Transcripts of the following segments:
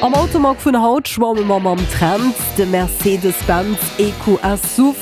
Am Automag vun haut schwamme mer mam Trend. De Mercedes-Benz EQS Suv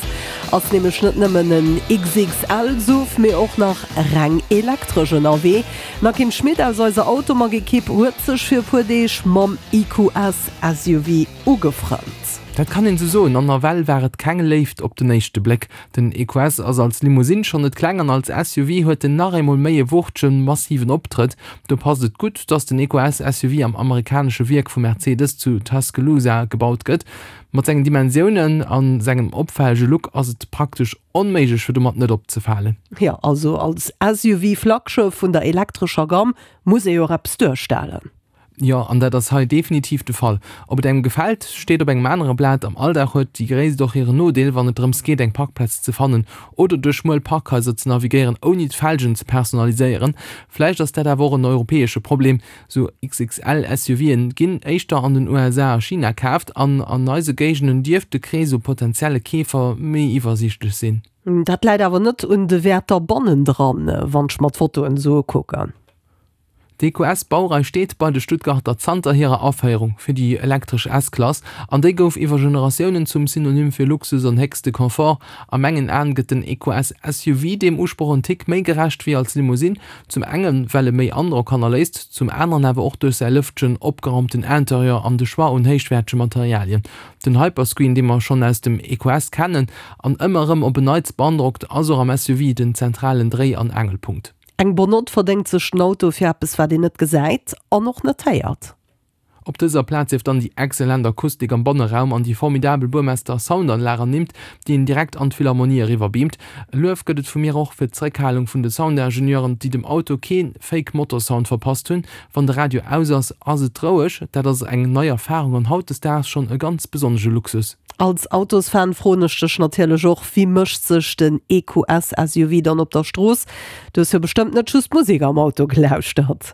ass nämlech net nëmmen en XXL-Suv, mee och nach reng elektresch ënnerwee. D'Nakim Schmit aus eiser Automag-Ekipp huet sech fir e puer Deeg mam EQS SUV ugefrënnt. Dat kann een esou soen, an nawell war et keng Léift op den éischte Bléck. Den EQS ass als Limousine schonn net kleng an als SUV huet en nach eemol méi e wuchtegen, massiven Optrëtt. Do passt et gutt, dass den EQS SUV am amerikanesche Wierk vu Mercedes zu Tuscaloosa gebaut gëtt. Mat sengen Dimensiounen a sengem opfällege Look ass et praktesch onméiglech fir domat net opzefalen. Jo, also als SUV-Flaggschëff vun der elektrescher Gamm muss ee jo och eppes duerstellen. Jo, an dat ass hei definitiv de Fall. Ob et engem gefält, steet op engem anere Blat. Am Alldag huet déi Gréisst och hiren Nodeel, wann et drëms geet, eng Parkplaz ze fannen oder duerch schmuel Parkhaiser ze navigéieren, ouni d'Felgen ze personaliséieren. Vläicht ass dat awer och en europäesche Problem. Sou XXL-SUVen ginn éischter an den USA a China kaaft an an eise Géigenden dierft de Krees u potentielle Keefer méi iwwersiichtlech sinn. Dat läit awer net un de Wäerter bannendran, wann ech mer d'Fotoen esou ukucken. D'EQS-Baurei steet bei de Stuttgarter zanter hirer Aféierung fir déi elektresch S-Klass, an déi gouf iwwer Generatiounen zum Synonym fir Luxus an héchste Confort. A mengen Aen gëtt den EQS SUV deem Usproch en Tick méi gerecht wéi als Limousine, zum enge well e méi Androck hannerléisst, zum aneren awer och duerch säi lëftegen, opgeraumten Interieur an de Choix un héichwäertege Materialien. Den Hyperscreen, dee mer schonn aus dem EQS kennen an ëmmer erëm op en Neits beandrockt, ass och am SUV den zentralen Dréi an Aangelpunkt. Eng bonne Note verdéngt sech den Auto fir eppes wat een net gesäit an och net héiert. Op dëser Plaz sief dann déi excellent Akustik am Banneraum an déi formidabel Burmester Soundanlag ernimmt, déi een direkt an d'Philharmonie eriwwer beamt. E Luef gëtt et vu mir och fir d'Zeréckhalung vun de Soundingenieuren, déi dem Auto kee Fake Motorsound verpasst hunn. Wann de Radio aus ass, ass et roueg. Dat ass eng nei Erfarung an hautdesdaags schonn e ganz besonnesche Luxus. Als Autosfan froen ech dech natierlech och, wéi mécht sech den EQS SUV dann op der Strooss? Du hues jo bestëmmt net just Musek am Auto gelauschtert.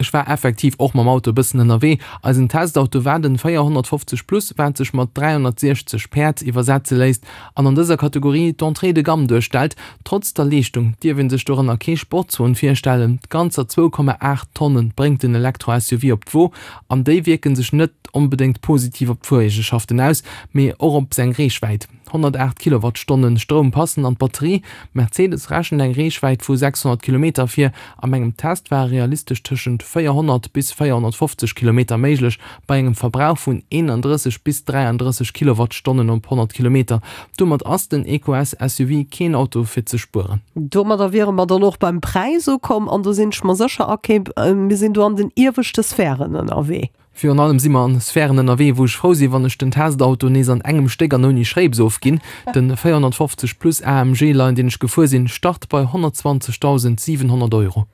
Ech war effektiv och mam Auto e bëssen ënnerwee. Eisen Testauto war den 450 Plus, wat sech mat 360 Päerd iwwersetze léisst an an dëser Kategorie d'Entrée de gamme duerstellt. Trotz der Leeschtung dierf een sech dorënner kee Sportswon virstellen. Ganzer 2,8 Tonne bréngt den Elektro-SUV op d'Wo an déi wierke sech net onbedéngt positiv op d'Fuereegenschaften aus, mee och op seng Reechwäit. 108 Kilowattstonne Stroum passen an d'Batterie. Mercedes rechent eng Reechwäit vu 600 Kilometer vir. A mengem Test ware realistesch tëschent 400 bis 450 Kilometer méiglech, bei engem Verbrauch vun 31 bis 33 Kilowattstonnen op 100 Kilometer. Domat ass den EQS SUV keen Auto fir ze spueren. Domadder wiere mer dann och beim Präis ukomm an do sinn ech mer sécher, okay, mir sinn do an den ieweschte Sphären ënnerwee. Virun allem si mer an Sphären ënnerwee, wou ech frou sinn, wann ech den Testauto nees an engem Stéck an ouni Schréips ofginn. Den 450 plus AMG Line, deen ech gefuer sinn, start bei 120.700 Euro.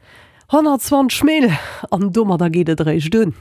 120 Mille! An domadder geet et eréischt un.